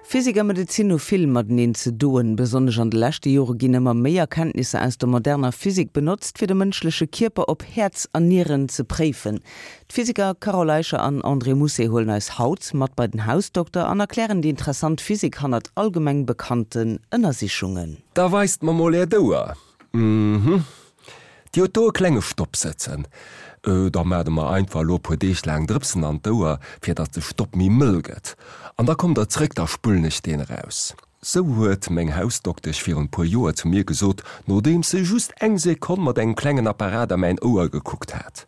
Physik a Medezin hu vill mateneen ze doen. Besonnesch an de leschte Jore ginn ëmmer méi Erkenntnisser aus der moderner Physik benotzt, fir de mënschleche Kierper op Häerz an Nieren ze préifen. D'Physiker Carole Eicher an André Mousset huelen eis haut mat bei den Hausdokter an erklären déi interessant Physik hannert allgemeng bekannten Ënnersichungen. Da weist mer mol äert Ouer. Mhm. Dir hutt do e klenge Stopp sëtzen. Da maacht der mer einfach elo e puer Deeg laang Drëpsen an d'Ouer, fir datt de Stopp méi mëll gëtt. An da kommt der zréck, da spullen ech deen eraus. Sou huet meng Hausdoktesch virun e puer Joer zu mir gesot, nodeems se just eng Sekonn mat engem klengen Apparat a mäin Ouer gekuckt hat.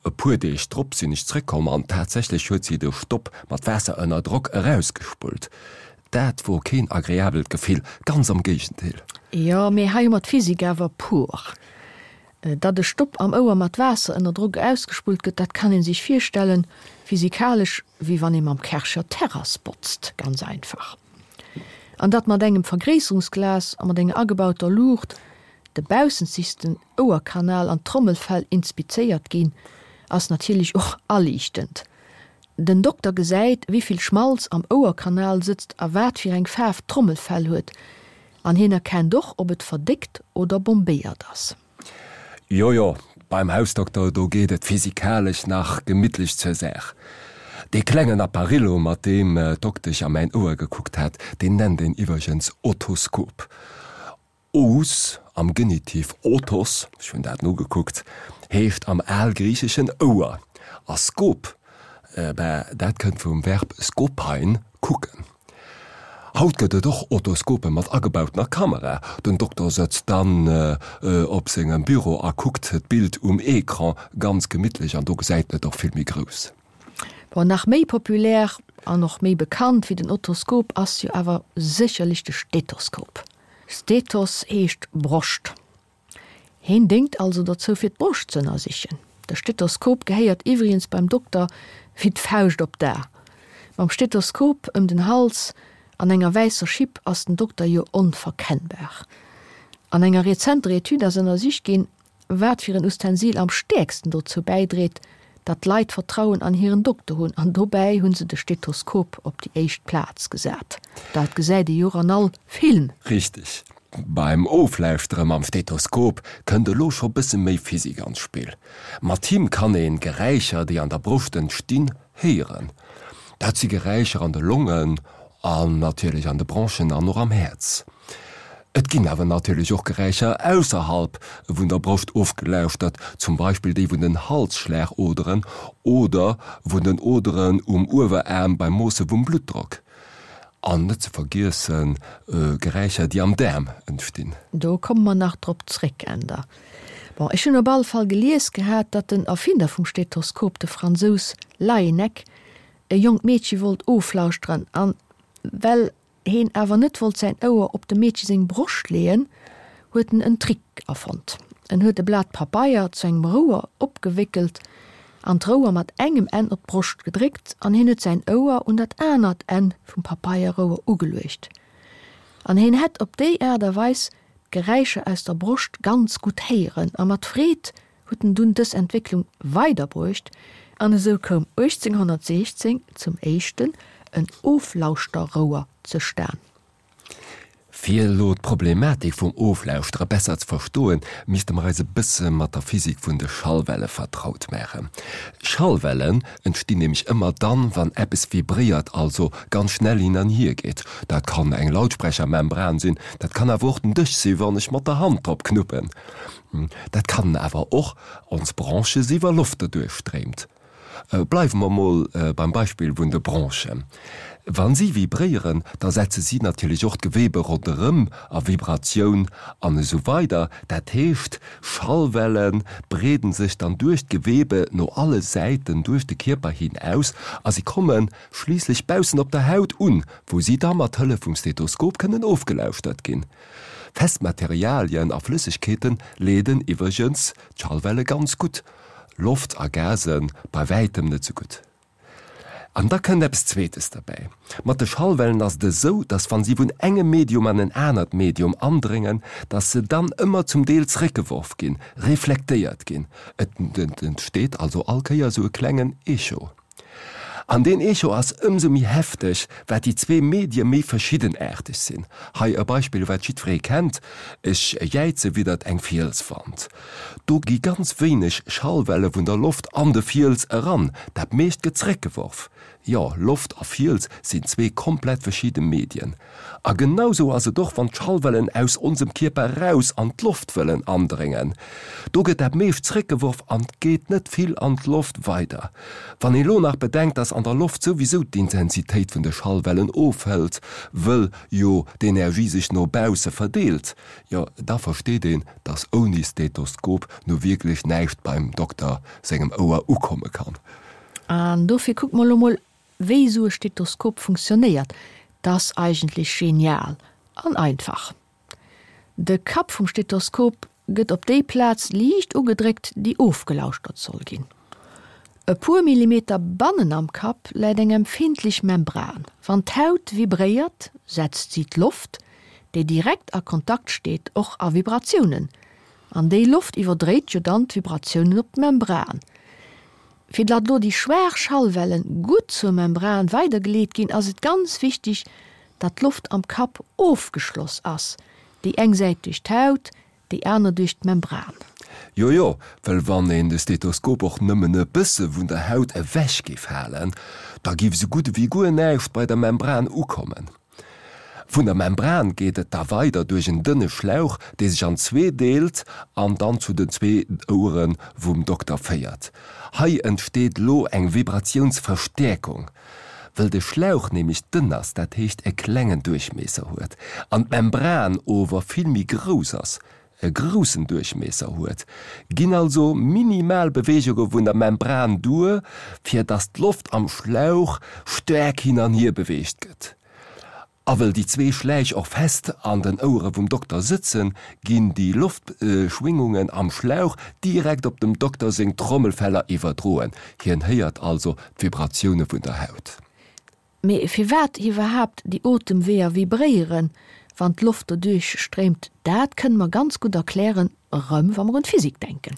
E puer Deeg drop sinn ech zréckkomm an tatsächlech huet si de Stopp mat Waasser ënner Drock erausgespullt. Dat wor keen agreabelt Gefill, ganz am Géigendeel. Jo, mee hei hu mer d'Physik awer pur. Datt e Stopp am Ouer mat Waasser ënner Drock ausgespullt gëtt, dat kann ee sech virstellen, physikalesch wéi wann ee mam Kärcher d'Terrass botzt, ganz einfach. An datt mat engem Vergréisserungsglas a mat enger agebauter Luucht de baussenzegsten Ouerkanal an d'Trommelfell inspizéiert ginn, ass natierlech och aliichtend. Den Dokter gesäit, wéi vill Schmalz am Ouerkanal sëtzt a wat fir eng Faarf d'Trommelfell huet. An hien erkennt och, ob et verdéckt oder bombéiert ass. Jo, jo, beim Hausdokter, do geet et physikalesch nach gemittlech zur Saach. Dee klengen Apparillo, mat deem d'Doktesch a mäin Ouer gekuckt hat, deen nennt een iwwergens Otoskop. Os, am Genitiv otos, ech hunn dat nogekuckt, heescht am Algriicheschen Ouer, a skop, ben, dat kënnt vum Verb skopein, kucken. Haut gëtt et och Otoskope mat agebautener Kamera. Den Dokter sëtzt dann op sengem Büro a kuckt d'Bild um Ecran ganz gemittlech an do gesäit en et och vill méi grouss. Bon, nach méi populär an och méi bekannt wéi den Otoskop ass jo awer sécherlech de Stethoskop. Stethos heescht Broscht. Heen déngt also dozou fir d'Broscht z'ënnersichen. De Stethoskop gehéiert iwwrigens beim Dokter wéi d'Fauscht op d'A. Mam Stethoskop ëm den Hals an enger wäisser Schipp ass den Dokter jo onverkennbar. An enger rezenter Etüd ass ënnersicht ginn, wat fir en Ustensil am stäerksten dozou bäidréit, datt d'Leit Vertrauen an hiren Dokter hunn, an dobäi hu se de Stethoskop op déi éischt Plaz gesat. Dat gesäit ee jo och an all Film. Richteg. Beim Oflauschtere mam Stethoskop kënnt elo scho bësse méi Physik an d'Spill. Mat him kann een Geräischer, déi an der Broscht entstinn, héieren. Dat si Geräischer an de Longen an natierlech an de Bronchen an och am Häerz. Et ginn awer natierlech och Geräischer ausserhalb vun der Broscht ofgelauschtert, zum Beispill déi vun den Halsschlagoderen oder vun den Oderen um Ueweraarm beim Moosse vum Bluttdrock. An net ze vergiessen Geräischer, déi am Daarm entstinn. Do komme mer nach drop zréck, Änder. Bon, ech hunn op alle Fall gelies gehat, datt den Erfinder vum Stethoskop, de Fransous Laennec, e jonkt Meedche wollt oflauschteren an well heen awer net wollt säin Ouer op dem Meedche seng Broscht leeën, huet en en Trick erfonnt. En huet e Blat Pabeier zu engem Rouer opgewéckelt an d'Rouer mat engem Enn op d'Broscht gedréckt an heen huet säin Ouer un dat anert Enn vum Papeierrouer ugeluecht an heen hätt op déi Aart a Weis d'Geräischer aus der Broscht ganz gutt héieren a mat Freed huet en dunn dës Entwécklung weiderbruecht an esou koum 1816 zum éischten en Oflauschterrouer zestan. Fir elo d'Problematik vum Oflauschtere besser ze verstoen, misste mer eis e bësse mat der Physik vun de Schallwelle vertraut maachen. Schallwellen entstinn nämlech ëmmer dann, wann eppes vibréiert, also ganz schnell hin an hier geet. Dat kann eng Lautsprechermembran sinn, dat kann awer och den Dësch sinn, wann ech mat der Hand drop knuppen. Dat kann awer och ons Bronche si wa Loft doduerch stréimt. Bleiwe mer mol beim Beispill vun de Bronchen. Wa si vibréieren, da setze si natierlech och d'Gewebe ronderëm a Vibratioun an esou weider. Dat heescht, Schallwelle breeden sech dann duerch d'Gewebe no alle Säiten duerch de Kierper hin aus a si komme schliisslech baussen op der Haut un, wou si da mat Hëllef vum Stethoskop kënnen ofgelauschtert ginn. Fest Materialien a Flëssegkeete leeden iwwregens d'Schallwelle ganz gutt, Loft a Gase bei wäitem net sou gutt. An da kënnt eppes Zweetes derbäi, Mat de Schallwellen ass et esou, dass wa si vun engem Medium an en anert Medium andréngen, dass se dann ëmmer zum Deel zréckgeworf ginn, reflektéiert ginn. Et entsteet also all Kéier esou e klengen Echo. An deen Echo ass ëmsou méi hefteg, wat déi zwee Medie méi verschiddenaarteg sinn. Hei e Beispill, wat jiddweree kennt, Ech jäize widdert eng Fielswand. Do gi ganz wéineg Schallwelle vun der Loft an de Fiels eran, dat meescht gëtt zeréckgeworf. Jo, Loft a Fiels sinn zwee komplett verschidde Medien. A genau sou ass et och, wann d'Schallwellen aus onsem Kierper raus an d'Loft wëllen andréngen. Do gëtt dat meescht zréckgeworf an geet net vill an d'Loft weider. Wann ee lo nach bedenkt, dass an der Loft souwisou d'Intensitéit vun de Schallwellen ofhëlt, wëll jo d'Energie sech no bausse verdeelt, jo da versteet een, dass ouni Stethoskop nu wierklech näischt beim Dokter sengem Ouer ukomme kann. An dofir kucke mer lo mol wéi esou e Stethoskop funktionéiert. 't ass eigentlech genial an einfach. De Kapp vum Stethoskop gëtt op déi Plaz liicht ugedréckt, déi ofgelauschtert soll ginn. E puer Millimeter bannen am Kapp läit eng empfindlech Membran. Wann d'Haut vibréiert, setzt si d'Loft, déi direkt a Kontakt steet, och a Vibratiounen. An déi Loft iwwerdréit jo dann d'Vibratiounen op d'Membran. Fir datt lo déi schwaach Schallwellen gutt zur Membran weidergeleet ginn, ass et ganz wichteg, datt d'Loft am Kapp ofgeschloss ass, déi eng Säit duerch d'Haut, déi aner duerch d'Membran. Jo jo, well wann een de Stethoskop och nëmmen e bësse vun der Haut ewech géif halen, da géif esou gutt ewéi guer näischt bei der Membran ukommen. Vun der Membran geet et da weider duerch en dënne Schlauch, dee sech an zwee deelt an dann zu den zwee Ouere vum Dokter féiert. Hei entsteet lo eng Vibratiounsverstäerkung, wëll de Schlauch nämlech dënn ass, dat heescht e klengen Duerchmiesser huet, an d'Membran ower vill méi grouss ass, e groussen Duerchmiesser huet, ginn also minimal Beweegunge vun der Membran duer, fir dass d'Loft am Schlauch staark hin an hier beweegt gëtt. A wëll déi zwee Schläich och fest an den Ouere vum Dokter sëtzen, ginn déi Loftschwingungen am Schlauch direkt op dem Dokter seng Trommelfeller iwwerdroen. Hien héiert also d'Vibratioune vun der Haut. Mee firwat iwwerhaapt déi Otemweeër vibréieren, wann d'Loft doduerch stréimt, dat kënne mer ganz gutt erklären, erëm wa mer un d'Physik denken.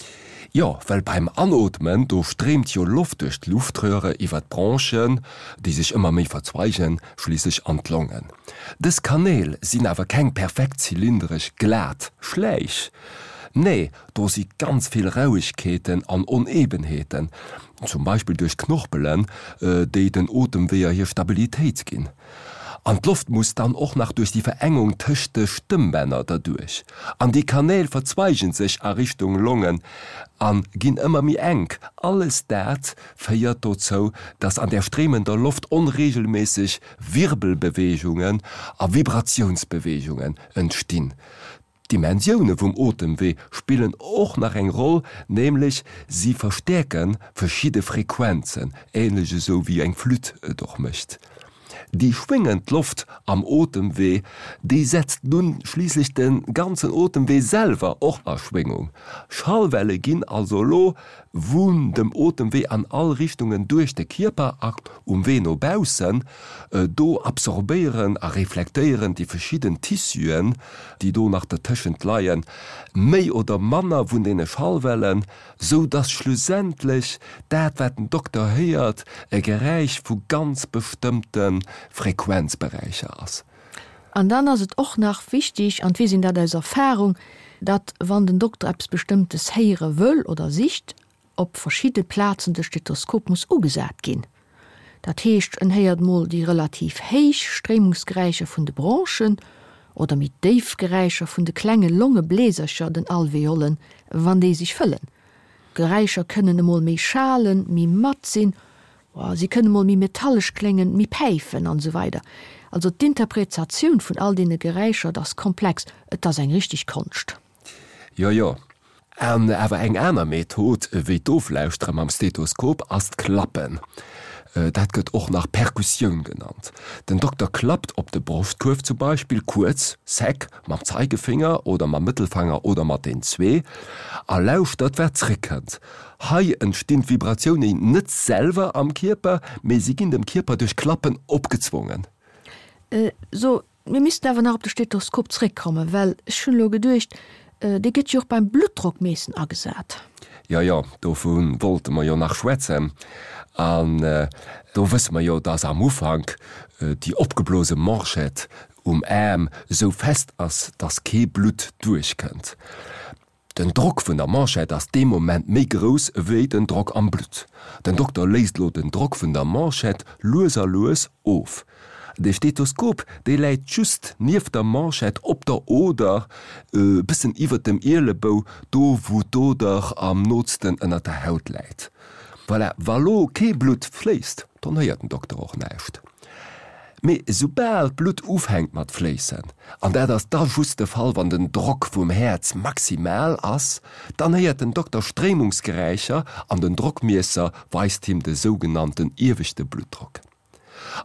Jo, well beim Anootmen, do stréimt jo Loft duerch d'Luftröhre iwwer d'Bronchen, déi sech ëmmer méi verzweigen, schliisslech an d'Longen. Dës Kanäl sinn awer keng perfekt zylindresch, glat Schläich. Nee, do si ganz vill Rauegkeeten an Onebenheeten, zum Beispill duerch d'Knorpelen, déi den Otemweeër hir Stabilitéit ginn. An d'Loft muss dann och nach duerch déi Verengung tëscht de Stëmmbänner derduerch. An déi Kanäl verzweigen sech a Richtung Longen a ginn ëmmer méi enk. Alles dat féiert dozou, dass an där stréimender Loft onreegelméisseg Wirbelbeweegungen a Vibratiounsbeweegungen entstinn. D'Dimensioune vum Otemwee spillen och nach eng Roll, nämlech si verstäerke verschidde Frequenzen, änlech esou wéi eng Flütt et och mécht. Déi schwéngend Loft am Otemwee, déi setzt nun schliisslech de ganzen Otemwee selwer och a Schwéngung. Schallwelle ginn also elo vun dem Otemwee an all Richtungen duerch de Kierper a um Wee no baussen. Do absorbéieren a reflektéieren déi verschidden Tissuen, déi do nach dertëschent leien, méi oder manner vun deene Schallwellen, sou dass schlussendlech dat, wat den Dokter héiert, e Geräisch vu ganz bestëmmte Frequenzberäicher ass. An dann ass et och nach wichtig, an d'weess een dat aus Erfahrung, datt wann den Dokter eppes Bestëmmtes héiere wëll oder sicht, op verschidde Plazen de Stethoskop muss ugesat ginn. Dat heescht, en héiert mol déi relativ héich Stréimungsgeräischer vun de Bronchen oder méi déif Geräischer vun de klenge Longebläsercher, den Alveolen, wann déi sech fëllen. D'Geräischer kënnen emol méi schalen, méi matt sinn, si kënnen emol méi metallesch kléngen, méi päifen an esou weider. Also d'Interpretatioun vun all deene Geräischer, et ass komplex, et ass eng richteg Konscht. Jo, jo. An awer eng aner Method wéi d'Oflauschtere mam Stethoskop ass d'Klappen. Dat gëtt och nach Perkussioun genannt. Den Dokter klappt op de Broschtkuerf zum Beispill kuerz, sec, mam Zeigefinger oder mam Mëttelfanger oder mat den zwee a lauschtert wat zréckkënnt. Hei entstinn d'Vibratiounen net selwer am Kierper, mee si ginn dem Kierper duerch Klappen opgezwongen. So, Mir missten awer nach op de Stethoskop zréckkommen, well ech hunn elo geduecht, dee gëtt jo och beim Bluttdrockmeessen agesat. Jo, jo, dovu wollte mer jo nach schwätzen. An do wësse mer jo, dass am Ufank déi opgeblose Manchette um Aarm esou fest ass, dass kee Blutt duerchkënnt. Den Drock vun der Manchette ass dee Moment méi grouss ewéi den Drock am Blutt. Den Dokter léisst elo den Drock vun der Manchette lues a lues of. De Stethoskop, dee läit just nieft der Manchette op der Oder, e bëssen iwwert dem Ielebou, do wou d'Oder am nootsten ënnert der Haut läit. Voilà, wa lo kee Blutt fléisst, dann héiert den Dokter och näischt. Mee soubal d'Blutt ufänkt mat fléissen, an dat ass da just de Fall wann den Drock vum Häerz maximal ass, dann héiert den Dokter Stréimungsgeräischer an den Drockmiesser weist him de sougenannten ieweschte Bluttdrock.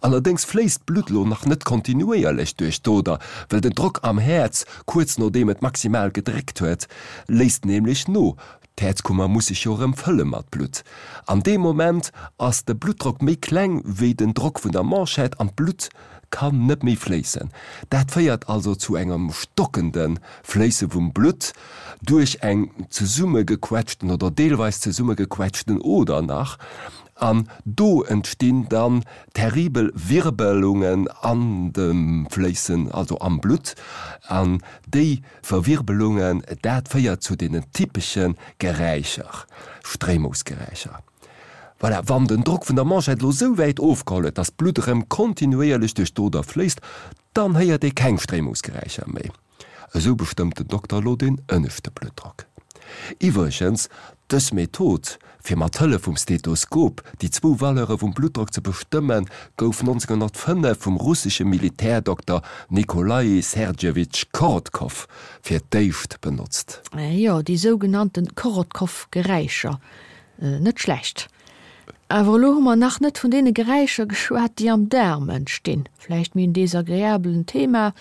Allerdéngs fléisst d'Blutt lo nach net kontinuéierlech duerch d'Oder, well den Drock am Häerz, kuerz nodeem et maximal gedréckt huet, léisst nämlech no. D'Häerzkummer muss sech jo erëm fëlle mat Blutt. An deem Moment ass de Bluttdrock méi kleng wéi den Drock vun der Manchette an d'Blutt kann net méi fléissen. Dat féiert also zu engem stockende Fléisse vum Blutt duerch eng zesummegequetschten oder deelweis zesummegequetschten Oder nach. An do entstinn dann terribel Wirbelungen an dem Fléissen, also am Blutt. An déi Verwirbelungen, dat féiert zu deenen typesche Geräischer, Stréimungsgeräischer. Voilà, wann den Drock vun der Manschett elo sou wäit ofgeholl huet, dass d'Blutt erëm kontinuéierlech duerch d'Oder fléisst, dann héiert ee keng Stréimungsgeräischer méi. Esou bestëmmt den Dokter elo den ënneschte Bluttdrock. Iwwregens, dës Method, fir mat Hëllef vum Stethoskop déi zwou Valeure vum Bluttdrock ze bestëmmen, gouf 1905 vum russesche Militärdokter Nikolaï Sergejewitsch Korotkow fir d'éischt benotzt. Jo, déi sougenannte Korotkow-Geräischer. Net schlecht. Awer elo hu mer nach net vun deene Geräischer geschwat, déi am Daarm entstinn. Vläicht méi en desagreabelen Thema,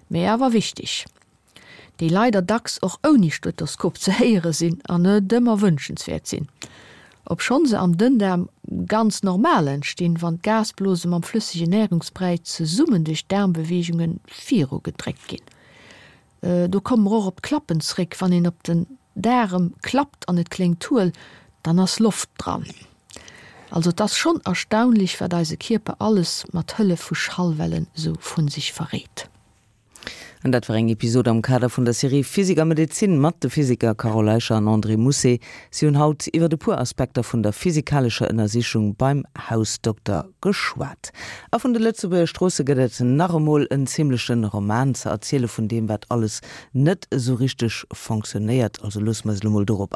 mee awer wichteg, déi leider dacks och ouni Stethoskop ze héiere sinn an net ëmmer wënschenswäert sinn, obschonn se am Dënndaarm ganz normal entstinn, wann d'Gasblose mam flëssegen Närungsbräi zesummen duerch d'Daarmbeweegunge virugedréckt ginn. Do komme mer och op d'Klappen zréck, wann een op den Daarem klappt an et kléngt huel, dann ass Loft dran. Also et ass schonn erstaunlich, wat eise Kierper alles mat Hëllef vu Schallwellen sou vun sech verréit. An dat war eng Episod am Kader vun der Serie Physik a Medezin mat de Physiker Carole Eicher an André Mousset. Si hunn haut iwwer e puer Aspekter vun der physikalescher Ënnersichung beim Hausdokter geschwat. A vun de Lëtzebuerger Stroosse gëtt et nach emol en zimmleche Roman ze erziele vun deem, wat alles net esou richteg fonctionnéiert. Also loosse mer eis elo mol dorop an.